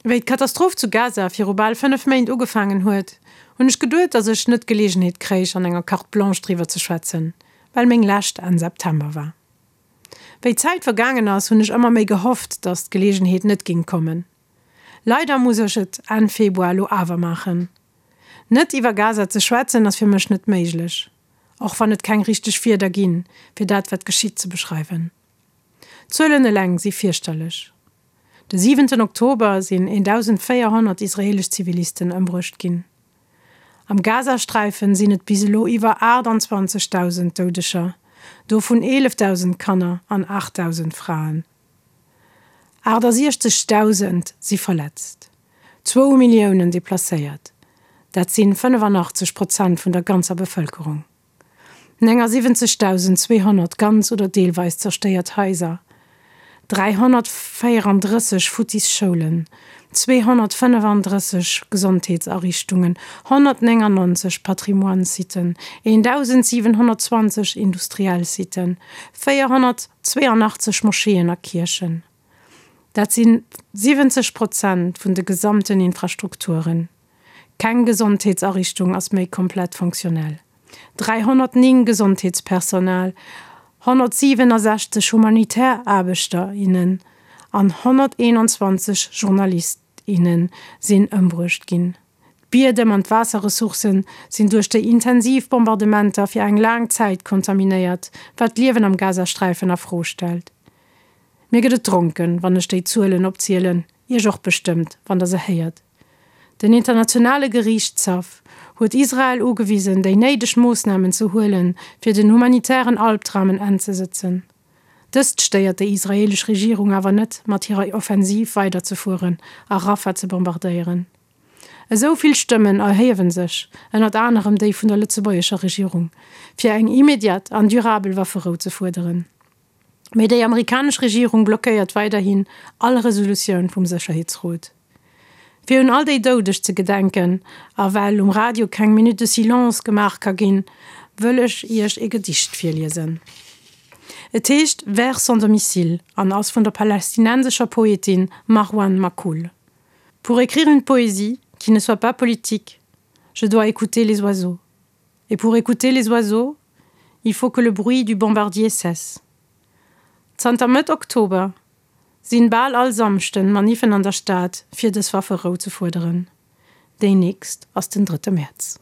Wéi d'Katastroph zu Gaza viru bal 5 Méint ugefaangen huet, hunn ech geduet, datt ech net d'Geleegenheet kréich an enger Carte Blanche driwwer ze schwätzen, well meng lescht Enn September war. Wéi d'Zäit vergaangen ass, hunn ech ëmmer méi gehofft, datt d'Geleegenheet net ging kommen. Leider muss ech et Enn Februar elo awer maachen. Net iwwer Gaza ze schwätzen ass fir mech net méiglech, och wann et keng richteg Wierder ginn, fir dat wat geschitt ze beschreiwen. D'Zuelen eleng si fierchterlech. De siwenten Oktober sinn 1.400 israeelesch Zivilisten ëmbruecht ginn. Am Gazasträifen sinn et bis elo iwwer 28.000 Doudeger, dovun 11.000 Kanner an 8.000 Fraen. 68.000 si verletzt, zwou Milliounen deplacéiert, dat sinn 85 Prozent vun der ganzer Bevëlkerung. 79.200 ganz oder deelweis zerstéiert Haiser, 334 futtis Schoulen, 235 Gesondheetsariichtungen, 199 Patrimoine-Siten, 1.720 industriell Siten, 482 Moscheeën a Kierchen. Dat si 70 Prozent vun de gesamten Infrastrukturen. Keng Gesondheetsariichtung ass méi komplett fonctionnel. 309 Gesondheetspersonal, 167 humanitär Aarbechter, innen an 121 Journalist, innen sinn ëmbruecht ginn. D'Biedem an d'Waasserressourcen sinn duerch déi intensiv Bombardementer fir eng laang Zäit kontaminéiert, wat d'Liewen am Gazasträifen a Fro stellt. Mir gëtt et dronken, wann ech déi Zuelen opzielen, Iech och bestëmmt, wann der se héiert. Den Internationale Geriichtshaff huet Israel ugewisen, déi néideg Moossnamen ze huelen, fir den humanitären Albdram en Enn ze sëtzen. Dëst stéiert déi israeelesch Regierung awer net, mat hirer Offensiv weiderzefueren a Rafah ze bombardéieren. Esou vill Stëmmen erhiewen sech, ënnert anerem déi vun der lëtzebuergescher Regierung, fir eng immediat an durabel Wafferou ze fuerderen. Mee déi amerikanesch Regierung blockéiert weiderhin all Resolutioun vum Sécherheetsrot. Fir un all déi Doudeg ze gedenken a well um Radio keng Minute de silence gemaach ka ginn, wëll ech Iech e Gedicht virliesen. Et heescht Vers sans domicile an ass vun der palästinensescher Poetin Marwan Makhoul. Pour écrire une poésie qui ne soit pas politique, je dois écouter les oiseaux. Et pour écouter les oiseaux, il faut que le bruit du bombardier cesse. Zanter Mëtt Oktober sinn bal all Samschden Maniffen an der Stad fir dës Wafferou ze fuerderen. Déi nächst ass den drëtte Mäerz.